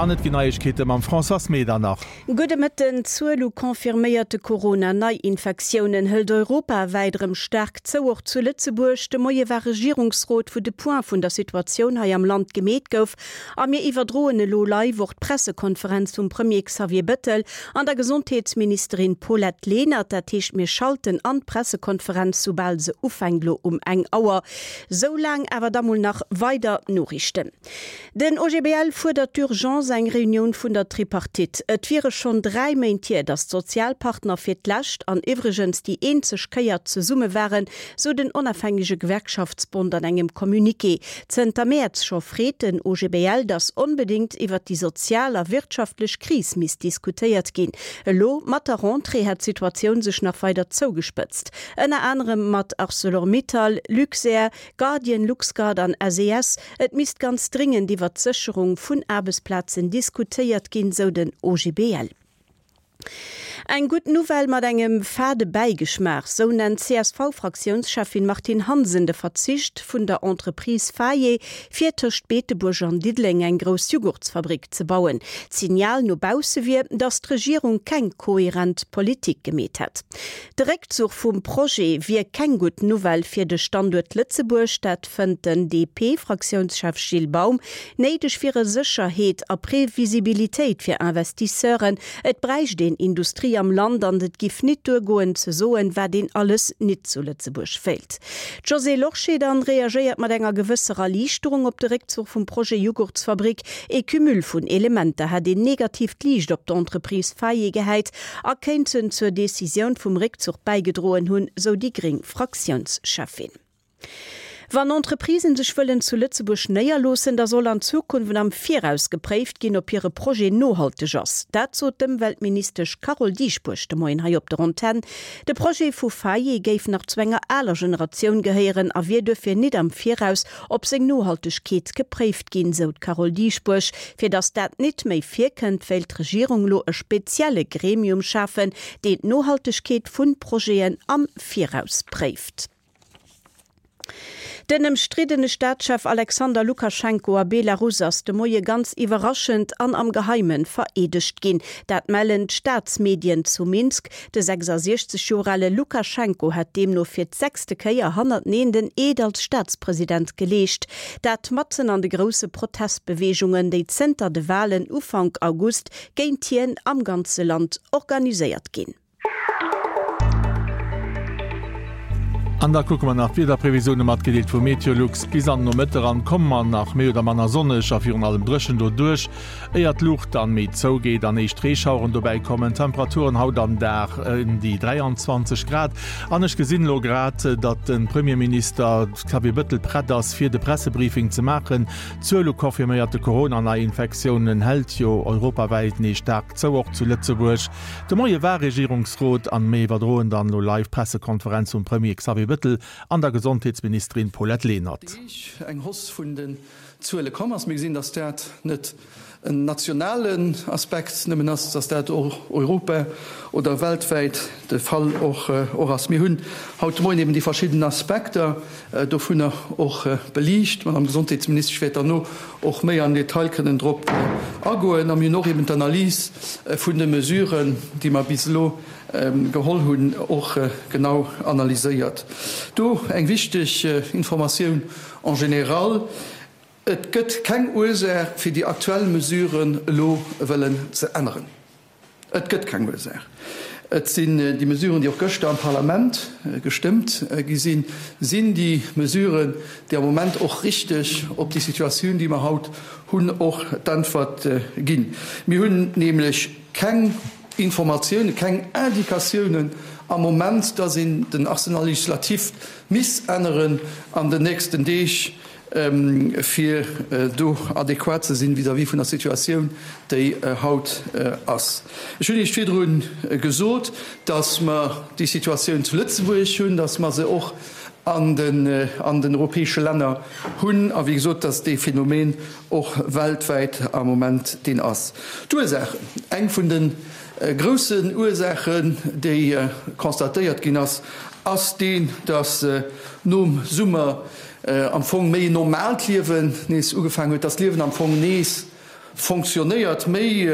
An et ginn Neiegkeete mam Françoise Medernach. Gudde Mëtten. D'Zuel u confirméierte Corona-Neiinfektiounen hëlt europawäit erëm staark zou, och zu Lëtzebuerg. De Moie war Regierungsrot, wou de Point vun der Situatioun hei am Land gemeet gouf. A mir iwwerdroen elo live och d'Pressekonferenz vum Premier Xavier Bettel an der Gesondheetsministerin Paulette Lenert. Dat heescht, mir schalten an d'Pressekonferenz, soubal se ufänkt, elo um eng Auer. Sou laang awer da mol nach weider Noriichten. Den OGBL fuerdert d'urgence eng Reunioun vun der Tripartite. Et wiere schonn 3 Méint hier, datt d'Sozialpartner fir d'lescht an iwwregens déi eenzeg Kéier zesumme waren, sou den onafhängege Gewerkschaftsbond an engem Communiqué. Zënter Mäerz scho freet den OGBL, datt onbedéngt iwwert déi sozial a wirtschaftlech Kris misst diskutéiert ginn. Elo mat der Rentrée hätt d'Situatioun sech nach weider zougespëtzt. Ënner anerem mat Arcelor-Mittal, Luxair, Guardian, Luxguard an SES. Et misst ganz dringend iwwert d'Sécherung vun Aarbechtsplazen diskutéiert ginn, sou den OGBL. Eng gutt Nouvelle mat engem fade Bäigeschmaach, sou nennt d'CSV-Fraktiounscheffin Martine Hansen de Verzicht vun der Entreprise Faye, fir tëscht Beetebuerg an Diddeleng eng grouss Jughurtsfabrik ze bauen. D'Signal no bausse wier, datt d'Regierung keng kohärent Politik gemeet hätt. De Réckzuch vum Projet wier keng gutt Nouvelle fir de Standuert Lëtzebuerg, dat fënnt den DP-Fraktiounschef Gilles Baum. Néideg wiere Sécherheet a Previsibilitéit fir Investisseuren. Et bräicht een Industrie am Land an et giff nit duergoen ze soen, wat een alles nit zu Lëtzebuerg wéilt. D'Josée Lorsché dann reagéiert mat enger gewësser Erliichterung op de Réckzuch vum Projet Jughurtsfabrik. Ee Cumul vun Elementer hätt een negatiivt Liicht op d'Entreprise Faye gehäit a kéinten zur Decisioun vum Réckzuch bäigedroen hunn, sou déi gréng Fraktiounscheffin. Wann Entreprisen sech wëllen zu Lëtzebuerg néierloossen, da soll an Zukunft am Viraus gepréift ginn, ob hire Projet nohalteg ass. Dat sot d'Ëmweltministesch Carole Dieschbourg de Moien hei op der Antenn. De Projet vu Faye géif nach zu enger aler Generatioun gehéieren a wier duerfir nit am Viraus op seng Nohaltegkeet gepréift ginn, sou d'Carole Dieschbourg. Fir datt dat nit méi virkënnt, wéilt d'Regierung lo e spezielle Gremium schafen, deen d'Nohaltegkeet vun Projeten am Viraus préift. Den ëmstriddene Staatschef Alexander Lukaschenko a Belarus ass de Moie ganz iwwerraschend an am Geheime vereedegt ginn. Dat mellen d'Staatsmedien zu Minsk. De 66 Joer ale Lukaschenko hätt deemno fir d'sechste Kéier hannerteneen den Eed als Staatspresident geleescht. Dat matzen an de grousse Protestbeweegungen, déi zënter de Walen Ufank August géint hien am ganze Land organiséiert ginn. An da kucke mer nach d'Wiederprevisioune matgedeelt vu Meteolux. Bis an den Nomëtte eran komme mer nach méi oder manner sonneg a virun allem dréchen doduerch. Éier d'Luucht dann méi zougeet an éischt Reeschaueren dobäi kommen. Temperaturen haut am Dag ëm déi 23 Grad. An ech gesinn elo grad, datt de Premierminister Xavier Bëttel prett ass, fir de Pressebriefing ze maachen. D'Zuel u confirméierte Corona-Neiinfektiounen hält jo europawäit nees staark zou, och zu Lëtzebuerg. De Moie war Regierungsrot an mir iwwerdroen dann elo live d'Pressekonferenz vum Premier Xavier Bëttel an der Gesondheetsministerin Paulette Lenert. Deeg eng Hausse vun den Zuele komm ass. Mir gesinn, dass dat net en nationalen Aspekt nëmmen ass, dass dat och europa oder weltwäit de Fall och ass. Mir hunn haut de Moien eben déi verschidden Aspekter dovunner och beliicht. D'Madame Gesondheetsministesch wäert derno och méi am Detail kënnen drop agoen. A mir hunn och eben d'Analys vun de Mesuren, déi mer bis elo geholl hunn, och genau analyséiert. Do eng wichteg Informatioun En général, et gëtt keng Ursaach, fir déi aktuell Mesuren elo wëllen ze änneren. Et gëtt keng Ursaach. Et sinn déi Mesuren, déi och gëschter am Parlament gestëmmt gi sinn, sinn déi Mesuren, déi am Moment och richteg op déi Situatioun, déi mer haut hunn, och d'Äntwert ginn. Mir hunn nämlech keng Informatiounen, keng Indikatiounen am Moment, dass een den Arsenal législatif misst änneren an den nächsten Deeg, fir do adequat ze sinn vis-à-vis vun der Situatioun, déi haut ass. Ech hunn Iech virdru gesot, dass mer déi Situatioun zu Lëtzebuerg hunn, dass mer se och an den europäesche Länner hunn a wéi gesot, dass dee Phänomen och weltwäit am Moment deen ass. D'Ursaachen, Eng vun de groussen Ursaachen, déi constatéiert ginn ass, ass deen, dass nom Summer am Fong méi en normaalt Liewen nees ugefaangen huet, dass d'Liewen am Fong nees. fonctionnéiert, méi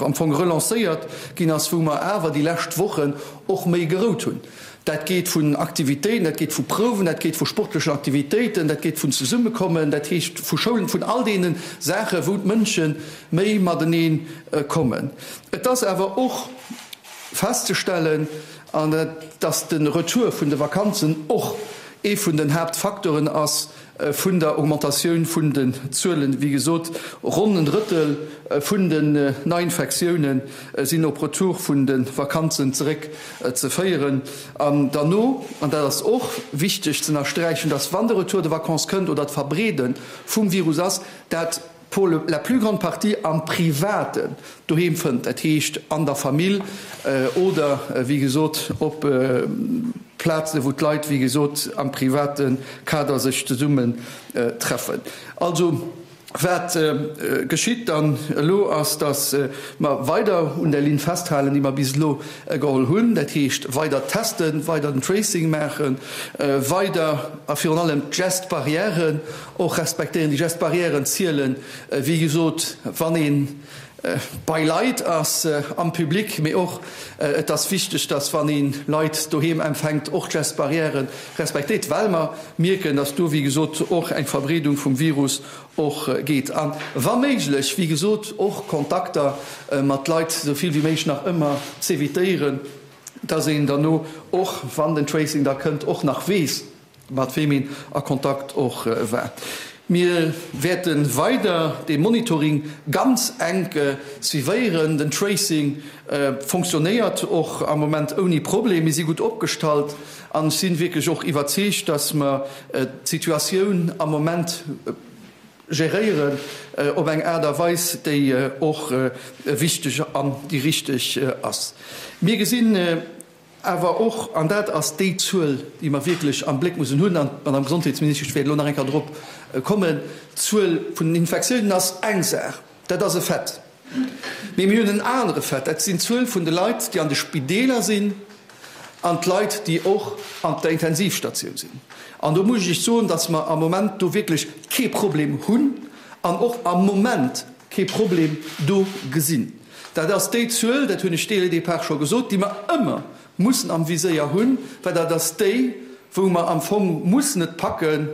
am Fong relancéiert ginn ass, wou mer awer déi lescht Wochen och méi gerout hunn. Dat geet vun Aktivitéiten, dat geet vu Prouwen, dat geet vu sportlechen Aktivitéiten, dat geet vun Zesummekommen, dat heescht vu Schoulen, vun all deene Saachen, wou d'Mënsche méi matenee kommen. Et ass awer och festzestellen, an dass de Retour vun de Vakanzen och ee vun den Haaptfacteuren ass vun der Augmentatioun vun den Zuelen. Wéi gesot, ronn en Drëttel vun den Neiinfektioune sinn op Retour vun de Vakanzen zeréck ze féieren. An derno, an dat ass och wichteg ze ënnersträichen, dass wann de Retour de vacances kënnt oder d'Verbreede vum Virus ass, dat pour la plus grande partie am Privaten doheem fënnt, dat heescht an der Famill oder, wéi gesot, op Plazen, wou d'Leit, wéi gesot, am private Kader sech zesummen treffen. Also, wat geschitt dann elo ass, dass mer weider un der Linn festhalen, déi mer bis elo geholl hunn, dat heescht weider testen, weider den Tracing maachen, weider a virun allem d'Gestes barrières Och respektéieren. Déi Gestes barrièren zielen, wéi gesot, wann ee bei Leit ass am Public, mee och et ass wichteg, dass wann ee Leit doheem empfänkt, och d'Gestes barrièrë respektéiert, well mer mierken, dass do, wéi gesot, och eng Verbreedung vum Virus och geet. A wa méiglech, wéi gesot, och Kontakter mat Leit esou vill wéi méiglech nach ëmmer z'evitéieren, dass een derno och, wann den Tracing da kënnt, och nach weess, mat weem een a Kontakt och war. Mir wäerte weider dee Monitoring ganz enk suivéieren. Den Tracing fonctionnéiert och am Moment ouni Problem. Mir si gutt opgestallt an ech si wierklech och iwwerzeegt, dass mer d'Situatioun am Moment geréieren op eng Aart a Weis, déi och wichteg an déi richteg ass. Mir gesinn Awer och, an dat ass déi Zuel, déi mer wierklech am Bléck mussen hunn, an d'Madame Gesondheetsministesch wäert elo nach eng Kéier drop kommen, d'Zuel vun den Infektiounen ass eng Saach, dat ass e Fait. Mee mir hunn en anere Fait, dat sinn d'Zuel vun de Leit, déi an de Spideeler sinn an d'Leit, déi och an der Intensivstatioun sinn. An do muss ech Iech soen, dass mer am Moment do wierklech kee Problem hunn an och am Moment kee Problem do gesinn. Dat ass déi Zuel, dat hunn ech dès le départ scho gesot, déi mer ëmmer mussen am Viséier hunn, well dat ass déi, wou mer am Fong mussen et packen,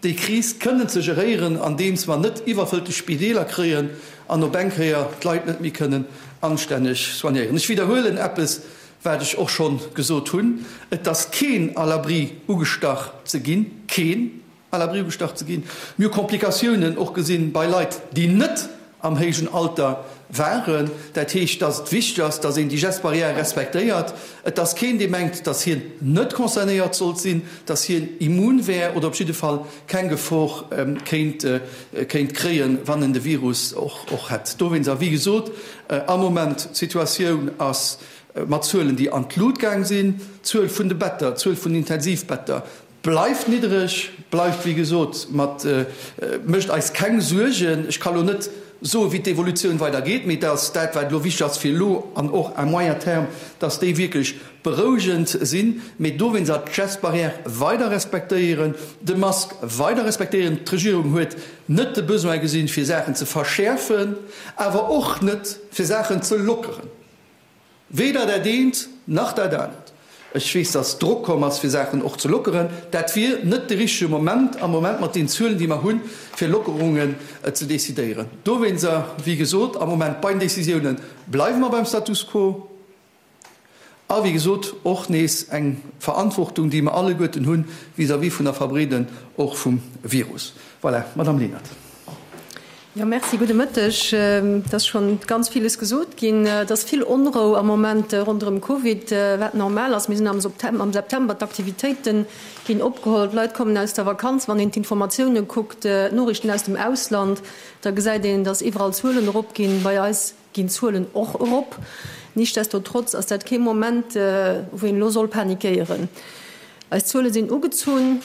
déi Kris kënnen ze geréieren, andeems mer net iwwerfëllte Spideeler kréien an op eng Kéier d'Leit net méi kënnen anstänneg soignéieren. Ech widderhuelen eppes, wat ech och scho gesot hunn, Et ass keen à l'abri ugestach ze ginn, keen! À l'abri gestach ze ginn. Mir hu Komplikatiounen och gesinn bei Leit, déi net am héijen Alter waren. Dat heescht, dass et wichteg ass, dass een déi Gestes barrières respektéiert. Et ass keen, dee mengt, dass hien net concernéiert sollt sinn, dass hien immun wär oder op jidde Fall keng Gefor kéint kéint kréien, wann en de Virus och och hätt. Dowéinst, a wéi gesot, am Moment, d'Situatioun ass mat Zuelen, déi an d'Lut gaang sinn, d'Zuel vun de Better, d'Zuel vun den Intensivbetter, Bleift niddereg, bleift wéi gesot mat, mécht eis keng Suergen. Ech ka lo net soen, wéi d'Evolutioun weider geet, mee dass dat, wat elo wichteg ass fir elo an och à moyen terme, dass déi wierklech berouegend sinn. Mee dowéinst ass d'Gestes barrières weider respektéieren, de Mask weider respektéieren. D'Regierung huet net de Besoin gesinn, fir Saachen ze verschäerfen, awer och net, fir Saachen ze lockeren. Weder dat eent nach dat anert. Ech weess, dass Drock komm ass, fir Saachen och ze lockeren. Dat wier net de richtege Moment am Moment mat den Zuelen, déi mer hunn, fir Lockerungen ze decidéieren. Dowéinster, wéi gesot, am Moment bei den Décisiounen bleiwe mer beim Status quo. A wéi gesot, och nees eng Verantwortung, déi mer alleguerten hunn vis-à-vis vun der Verbreeden och vum Virus. Voilà, Madame Lenert. Jo, merci. Gudde Mëtteg. Et ass schonn ganz villes gesot ginn. Et ass vill Onrou am Moment ronderëm Covid, wat normal ass. Mir sinn am am September, d'Aktivitéite ginn opgeholl, d'Leit kommen aus der Vakanz. Wann een d'Informatioune kuckt, d'Noriichten aus dem Ausland, da gesäit een, datt iwwerall Zuelen eropginn. Bei eis ginn d'Zuelen och erop. Nichtsdestotrotz ass dat kee Moment, wou een elo soll panikéieren. Eis Zuele sinn ugezunn.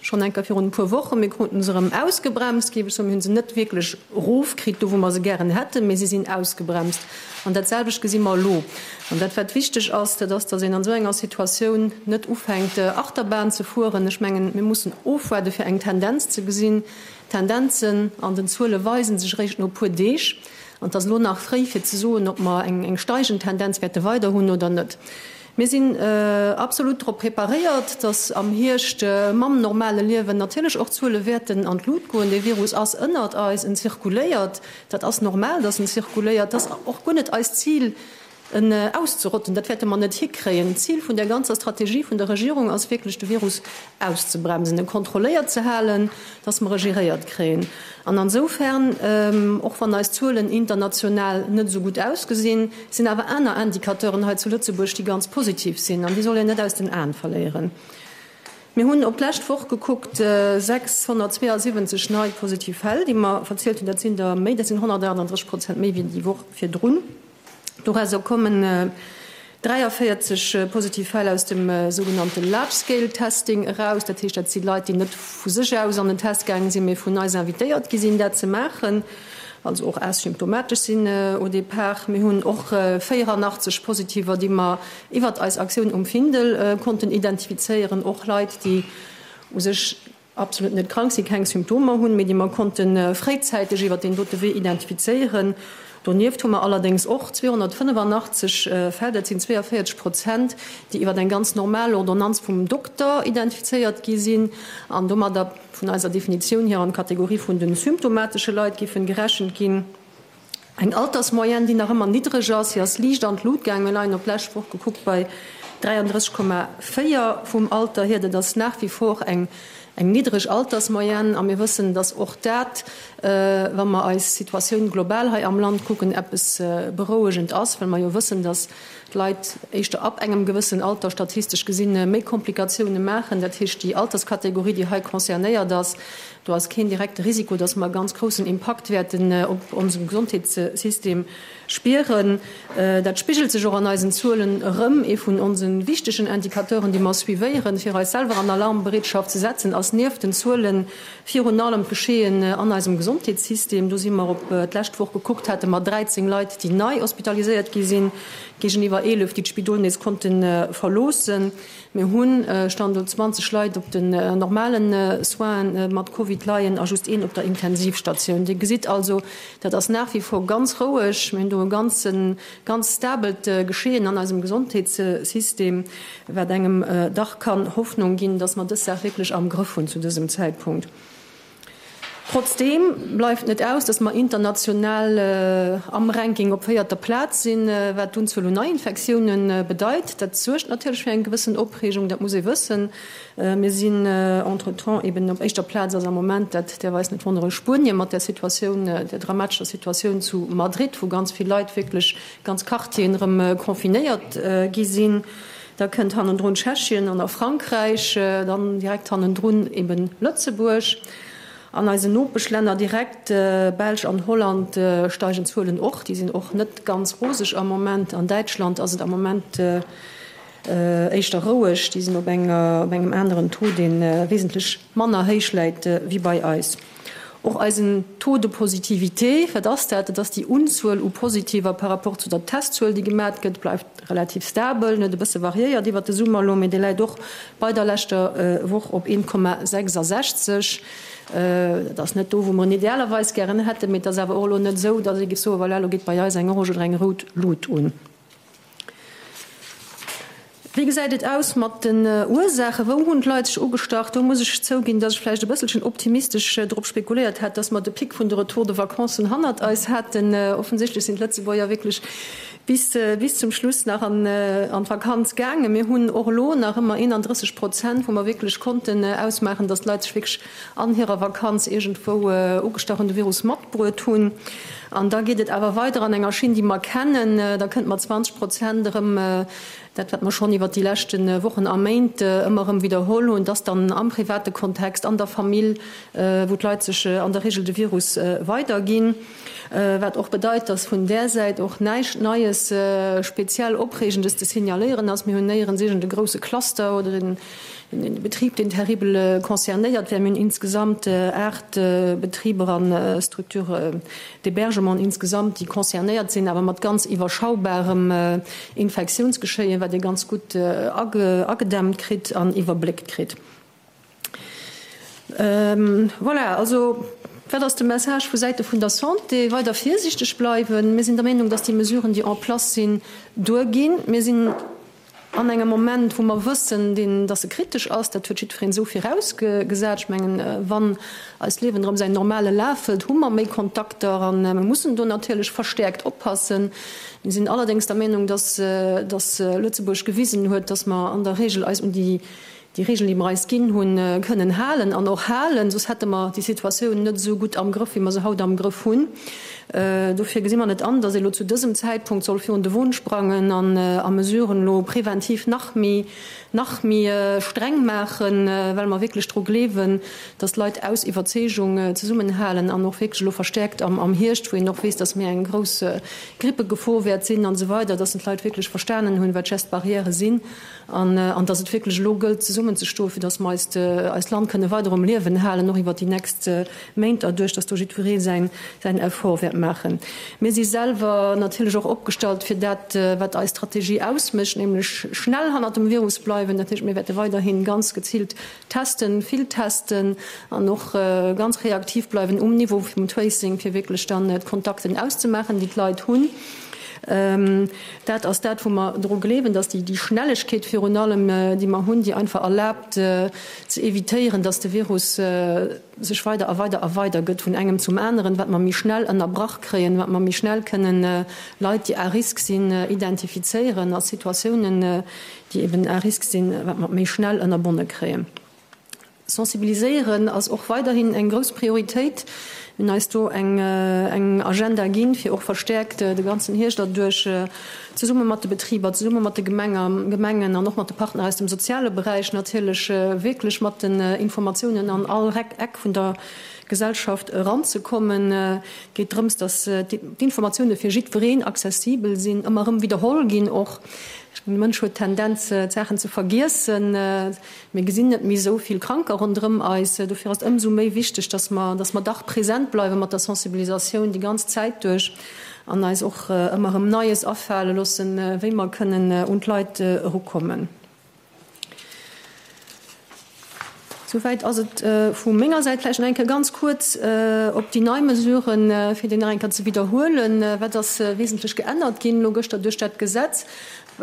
Schonn eng Kéier virun e puer Wochen. Mir kruten se erëm ausgebremst, géif ech soen. Mir hu se net wierklech erofkritt, do wou mer se gären hätten, mee se sinn ausgebremst. An dat selwecht gesi mer elo. An dat, wat wichteg ass, dat ass, datt een an esou enger Situatioun net ufänkt, Achterbahn ze fueren. Ech mengen, mir mussen ofwaarden, fir eng Tendenz ze gesinn. D'Tendenzen an den Zuele weisen sech eréischt no e puer Deeg an et ass elo nach fréi fir ze soen, ob mer eng steigend Tendenz wäerte weider hunn oder net. Mir sinn absolut drop preparéiert, datt am Hierscht mam normale Liewen natierlech och d'Zuele wäerten an d'Lut goen. Dee Virus ass ënnert eis, en zirkuléiert. Dat ass normal, datt en zirkuléiert. Dat ass och guer net eist Zil, en auszerotten. Dat wäerte mer net hikréien. D'Zil vun där ganzer Strategie vun der Regierung ass wierklech, de Virus auszebremsen, e kontrolléiert ze halen, dass mer e geréiert kréien. An ansoufern, och wann eis Zuelen international net esou gutt ausgesinn, sinn awer aner Indicateuren hei zu Lëtzebuerg, déi ganz positiv sinn an déi soll een net aus den Aen verléieren. Mir hunn op d'lescht Woch gekuckt 672 nei positiv Fäll, déi mer verzielt hunn. Dat sinn der méi, dat sinn 138 Prozent méi wéi déi Woch virdrun. Dorauser kommen 43 positiv Fäll aus dem sougenannte Large-Scale Testing eraus. Dat heescht, dat si Leit, déi net vu sech aus an den Test gaange sinn, mee vun eis invitéiert gi sinn, dat ze maachen, also och asymptomatesch sinn au départ. Mir hunn och 84 Positiver, déi mer iwwert eis Aktioun um Findel konnten identifizéieren, och Leit, déi u sech absolut net krank sinn, keng Symptomer hunn, mee déi mer konnte fréizäiteg iwwer deen dote Wee identifizéieren. Donieft hu mer allerdéngs och 285 Fäll, dat sinn 42 Prozent, déi iwwer eng ganz normal Ordonnanz vum Dokter identifizéiert gi sinn an domadder vun eiser Definitioun hier an d'Kategorie vun de symptomatesche Leit géifen gerechent ginn. Eng Altersmoyenne, déi nach ëmmer niddreg ass, si ass liicht an d'Lut gaangen. Mir leien op d'lescht Woch gekuckt bei 33,4 vum Alter hier. Dat ass nach wie vor eng eng niddreg Altersmoyenne a mir wëssen, datt och dat, wa mer eis Situatioun global hei am Land kucken, eppes Berouegend ass, well mer jo wëssen, datt d'Leit éischter ab engem gewëssen Alter statistesch gesinn méi Komplikatioune maachen. Dat heescht, déi Alterskategorie, déi hei concernéiert ass, Do ass keen direkte Risiko, dass mer e ganz groussen Impakt wäerten op onsem Gesondheetssystem spieren. Dat spigelt sech och an eisen Zuelen erëm. Ee vun onse wichtegen Indicateuren, déi mer suivéieren, fir eis selwer an Alarmbereetschaft ze setzen, ass nieft den Zuele virun allem d'Geschehen an eisem Gesondheetssystem. Do si mer op d'lescht Woch gekuckt, hate mer 13 Leit, déi nei hospitaliséiert gi sinn, géigeniwwer 11, déi d'Spidol nees konnte verloossen. Mir hunn, Stand elo, 20 Leit op den normalen Soinen mat Covid leien a just een op der Intensivstatioun. Dir gesitt also, dat ass nach wie vor ganz roueg. Mir hunn do e ganzen, ganz stabelt Geschehen an eisem Gesondheetssystem, wat engem dach kann Hoffnung ginn, dass mer dës Saach wierklech am Grëff hunn zu dësem Zäitpunkt. Trotzdeem bleift net aus, dass mer international am Ranking op véierter Plaz sinn, wat d'Unzuel un Neiinfektioune bedeit. Dat suergt natierlech fir eng gewëssen Opreegung, dat muss ee wëssen. Mir sinn entretemps eben op éischter Plaz ass am Moment, dat däerf eis net wonneren, Spuenien mat där Situatioun, där dramatescher Situatioun zu Madrid, wou ganz vill Leit wierklech ganz Quartieren erëm confinéiert gi sinn. Da kënnt hannendrun Tschechien an da Frankräich, dann direkt hannendrun eben Lëtzebuerg. An eisen Nopeschlänner direkt, Belsch an Holland, steigen d'Zuelen och. Déi sinn och net ganz roseg am Moment. An Däitschland ass et am Moment éischter roueg. Déi sinn op engem aneren Taux, dee wesentlech manner héich läit wéi bei eis. Och eisen Taux de positivité, wat ass dat? Dat ass déi Unzuel u Positiver par rapport zu der Testzuel, déi gemat gëtt, bleift relativ stabel, en huet e bësse variéiert iwwert de Summer elo, mee dee läit och bei der leschter Woch op 1,66. Dat ass net do, wou mer en idealerweis gären hätten, mee et ass awer och elo net esou, datt ee géif soen, voilà, elo geet bei eis eng orange oder eng rout Lut un. Wéi gesäit et aus mat den Ursaachen? Wou hunn d'Leit sech ugestach? Do muss ech zouginn, dass ech vläicht e bësselchen optimistesch drop spekuléiert hat, dass mer de Pic vun de Retour de vacances hannert eis haten. Offensichtlech sinn d'Lëtzebuerger wierklech bis bis zum Schluss nach an an d'Vakanz gaangen. Mir hunn och elo nach ëmmer 31 Prozent, wou mer wierklech konnten ausmaachen, dass d'Leit sech wierklech an hirer Vakanz iergendwou ugestach hunn, de Virus matbruet hunn. An da geet et awer weider an enger Schinn, déi mer kennen. Da kënnt mat 20 Prozent erëm dat, wat mer schonn iwwert déi leschte Wochen a Méint ëmmer erëm widderholl hunn, dass dann am private Kontext, an der Famill, wou d'Leit sech an der Regel de Virus weiderginn. Wat och bedeit, dass vun där Säit och näischt Neies, speziell Opreegendes ze signaléieren ass. Mir hunn néierens iergend e grousse Cluster oder en Betrib, deen terribel concernéiert wär. Mir hunn insgesamt 8 Betriber a Structures d'hébergement insgesamt, déi concernéiert sinn, awer mat ganz iwwerschaubarem Infektiounsgeschéien, wat ee ganz gutt agedämmt kritt an iwwerbléckt kritt. Voilà, also wat ass de Message vu Säite vun der Santé? Weider virsiichteg bleiwen. Mir sinn der Meenung, dass déi Mesuren, déi en place sinn, duerginn. Mir sinn an engem Moment, wou mer wëssen, deen, dass e kritesch ass. Dat huet jiddwereen esou virausgesat. Ech mengen, wann eist Liewen erëm säin normale Laf hëlt, hu mer méi Kontakter a mir mussen do natierlech verstäerkt oppassen. Mir sinn allerdéngs der Meenung, dass, dass Lëtzebuerg gewisen huet, dass mer an der Regel eis un déi déi Regeln, déi mer eis ginn hunn, kënnen halen an och halen, soss hätte mer déi Situatioun net esou gutt am Grëff, wéi mer se haut am Grëff hunn. Dofir gesi mer net an, datt ee elo zu dësem Zäitpunkt soll virun de Won sprangen an a Mesuren elo preventiv nach méi, nach méi streng maachen, well mer wierklech dru gleewen, datt d'Leit aus Iwwerzeegung zesummenhalen an och wierklech elo verstäerkt am Hierscht, wou een och weess, datt méi eng grouss Grippegefor wäert sinn an esou weider, datt d'Leit wierklech verstanen hunn, wat Gestes barrières sinn. An dass et wierklech elo gëllt, zesummenzestoen, fir dass mer eist, eist Land kënne weider um Liewen halen, och iwwert déi nächst Méint erduerch, dass do jiddweree säin, säin Effort wäert maachen. Mir si selwer natierlech och opgestallt fir dat, wat eis Strategie ausmécht, nämlech schnell hannert dem Virus bleiwen. Dat heescht, mir wäerte weiderhi ganz geziilt testen, vill testen an och ganz reaktiv bleiwen um Niveau vum Tracing, fir wierklech dann d'Kontakten auszemaachen, déi d'Leit hunn. Dat ass dat, wou mer dru gleewen, dass déi Schnellegkeet virun allem, déi mer hunn, déi einfach erlaabt ze evitéieren, dass de Virus sech weider a weider a weider gëtt vun engem zum aneren, wat mer méi schnell ënnerbrach kréien, wat mer méi schnell kënnen Leit, déi à risque sinn, identifizéieren a Situatiounen, déi eben à risque sinn, wat mer méi schnell ënnerbonne kréien. Sensibiliséieren ass och weiderhin eng grouss Prioritéit. Mir hunn eis do eng Agenda ginn, fir och verstäerkt de ganzen Hierscht erduerch zesumme mat de Betriber, zesumme mat de Gemengen an och mat de Partner aus dem soziale Beräich natierlech wierklech mat den Informatiounen an all Eck vun der Gesellschaft eranzekommen. Et geet drëms, datt d'Informatioune fir jiddwereen accessibel sinn, ëmmer erëm widderholl ginn och. De Mënsch huet d'Tendenz, d'Saachen ze vergiessen. Mir gesinn net méi esou vill Kranker ronderëm eis. Dofir ass et ëmsou méi wichteg, dass mer, dass mer dach present bleiwe mat der Sensibilisatioun déi ganz Zäit duerch an eis och ëmmer erëm Neies afale loossen, wéi mer kënnen un d'Leit erukommen. Souwäit ass et vu menger Säit. Vläicht nach eng Kéier ganz kuerz op déi nei Mesuren, fir déi nach eng Kéier ze widderhuelen. Wat ass wesentlech geännert ginn elo gëschter duerch dat Gesetz?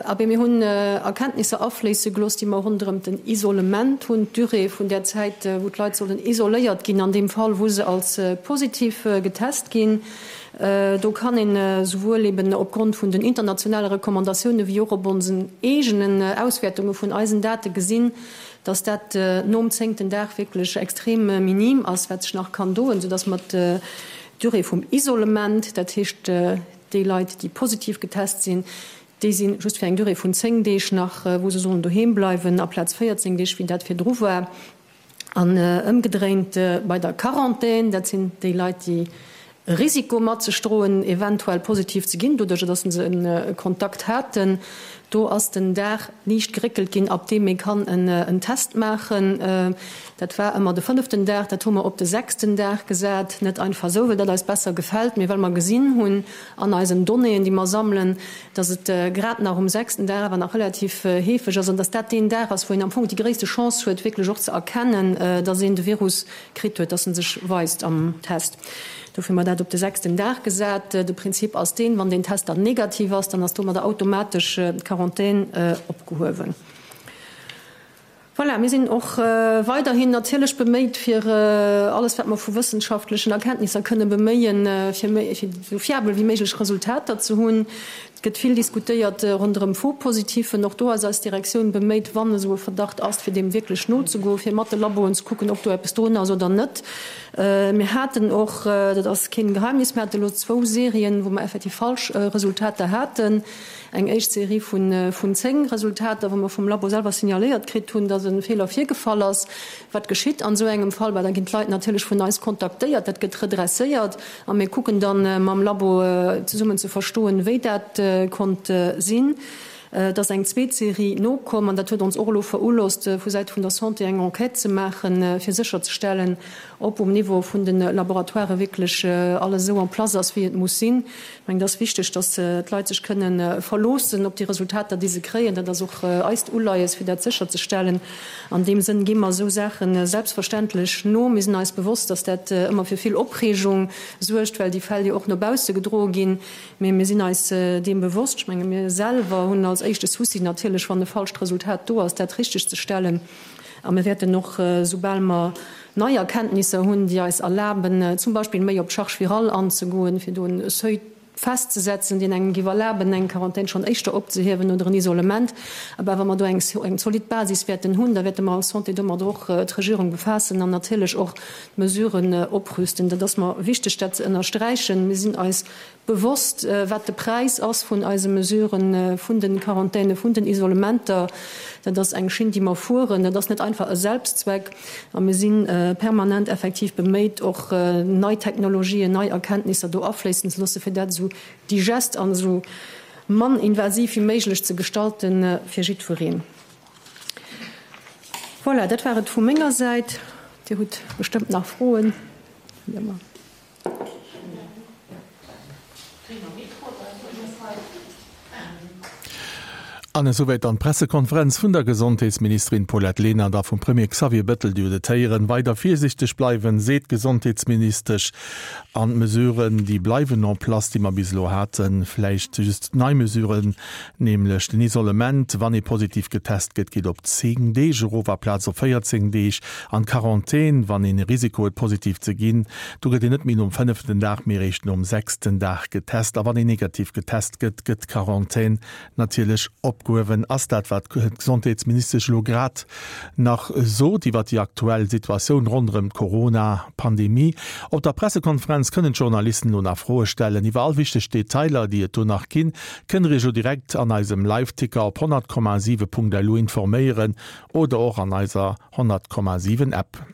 Abee, mir hunn Erkenntnisser afléisse gelooss, déi mer ronderëm den Isolement hunn, d'Durée vun där Zäit, wou d'Leit sollen isoléiert ginn an deem Fall, wou se als positiv getest ginn. Do kann een esouwuel eben opgrond vun den internationale Recommandatiounen wéi och op onsen eegenen Auswäertunge vun eisen Date gesinn, dass dat nom zéngten Dag wierklech extrem minim ass, wat sech nach kann doen, soudass mer d'Durée vum Isolement, dat heescht déi Leit, déi positiv getest sinn, déi si just fir eng Durée vun 10 Deeg nach, wou se sollen doheem bleiwen, aplaz 14 Deeg, wéi dat virdru war. An ëmgedréint bei der Quarantän, dat sinn déi Leit, déi e Risiko mat sech droen, eventuell positiv ze ginn, doduercher datt se e Kontakt haten. Do ass den Dag liicht geréckelt ginn, ab deem ee kann en Test maachen. Dat war ëmmer de fënneften Dag, dat hu mer op de sechsten Dag gesat. Net einfach esou, well dat eis besser gefält, mee well mer gesinn hunn an eisen Donnéeën, déi mer sammelen, dass et grad nach um sechsten Dag awer nach relativ heefeg ass an dass dat deen Dag ass, wou een am Fong déi gréisste Chance huet, wierklech och ze erkennen, dass een de Virus kritt huet, dass en sech weist am Test. Dofir hu mer dat op de sechsten Dag gesat. De Prinzip ass deen, Wann deen Test dann negativ ass, dann ass domadder automatesch d'Quarantän opgehuewen. Voilà, mir sinn och weiderhin natierlech beméit, fir alles, wat mer vu wëssenschaftlechen Erkenntnisser kënne beméien, fir méi, fir esou fiabel wéi méiglech Resultater ze hunn. Et gëtt vill diskutéiert ronderëm Faux-Positifen. Och do ass eis Direktioun beméit, wann esou e Verdacht ass, fir deem wierklech nozegoen, fir mat de Laboen ze kucken, ob do eppes drun ass oder net. Mir haten och, dat ass keen Geheimnis, mir hate elo zwou Serien, wou mer effektiv falsch Resultater haten. Eng éischt Serie vun 10 Resultater, wou mer vum Labo selwer signaléiert kritt hunn, dass e Feeler virgefall ass. Wat geschitt an esou engem Fall? Bah, da ginn d'Leit natierlech vun eis kontaktéiert, dat gëtt redresséiert a mir kucken dann mam Labo zesummen ze verstoen, wéi dat konnt sinn. Et ass eng zweet Serie nokomm an dat huet ons och elo verulosst, vu Säite vun der Santé eng Enquête ze maachen, fir sécherzestellen, ob um Niveau vun de Laboratoiren wierklech alles esou en place ass, wéi et muss sinn. Ech mengen, et ass wichteg, dass d'Leit sech kënnen verloossen op déi Resultater, déi se kréien. Dat ass och eist Uleies, fir dat sécherzestellen. An deem Sënn gi mer esou Saache selbstverständlech no. Mir sinn eis bewosst, dass dat ëmmer fir vill Opreegung suergt, well déi Fäll jo och no bausse gedroe ginn. Mee mir sinn eis deem bewosst. Ech menge mir selwer hunn als éischte Souci natierlech, wann e falscht Resultat do ass, dat richtegzestellen. A mir wäerten och, soubal mer nei Erkenntnisser hunn, déi eis erlaben, zum Beispill méi op d'Charge virale anzegoen, fir do e Seuil festzesetzen, deen engem géif erlaben, eng Quarantän schonn éischter opzehiewen oder en Isolement. Awer wa mer do eng zolidd Basis wäerten hunn, da wäerte mer als Santé domat och d'Regierung befaassen an natierlech och d'Mesuren oprüsten. Dat ass mer wichteg, dat ze ënnersträichen. Mir sinn eis bewosst, wat de Präis ass vun eise Mesuren, vun de Quarantäne, vun den Isolementer. Dat ass eng Schinn, déi mer fueren. Dat ass net einfach e Selbstzweck. A mir si permanent effektiv beméit, och nei Technologien, nei Erkenntnisser do afléissen ze loossen, fir dat esou digest an esou mann invasiv wéi méiglech ze gestalten fir jiddwereen. Voilà, dat war et vu menger Säit. Dir hutt bestëmmt nach Froen. An esouwäit dann d'Pressekonferenz vun der Gesondheetsministerin Paulette Lenert a vum Premier Xavier Bettel. Dir hutt et héieren, weider virsiichteg bleiwen, seet d'Gesondheetsministesch. An d'Mesuren, déi bleiwen en place, déi mer bis elo haten. Vläicht just nei Mesuren, nämlech den Isolement, wann ee positiv getest gëtt, geet op 10 Deeg erof aplaz op 14 Deeg. An d'Quarantän, wann een e Risiko huet positiv ze ginn, do gëtt een net méi nom fënneften Dag, mee eréischt nom sechsten Dag getest. A wann een negativ getest gëtt, gëtt d'Quarantän natierlech opgehuewen. Ass dat, wat d'Gesondheetsministesch elo grad nach sot iwwer déi aktuell Situatioun ronderëm d'Corona-Pandemie. Op der Pressekonferenz kënnen d'Journalisten elo nach Froe stellen. Iwwer all wichteg Detailer, déi et do nach ginn, kënnt der Iech elo direkt an eisem Liveticker op 100,7.lu informéieren oder och an eiser 100,7 App.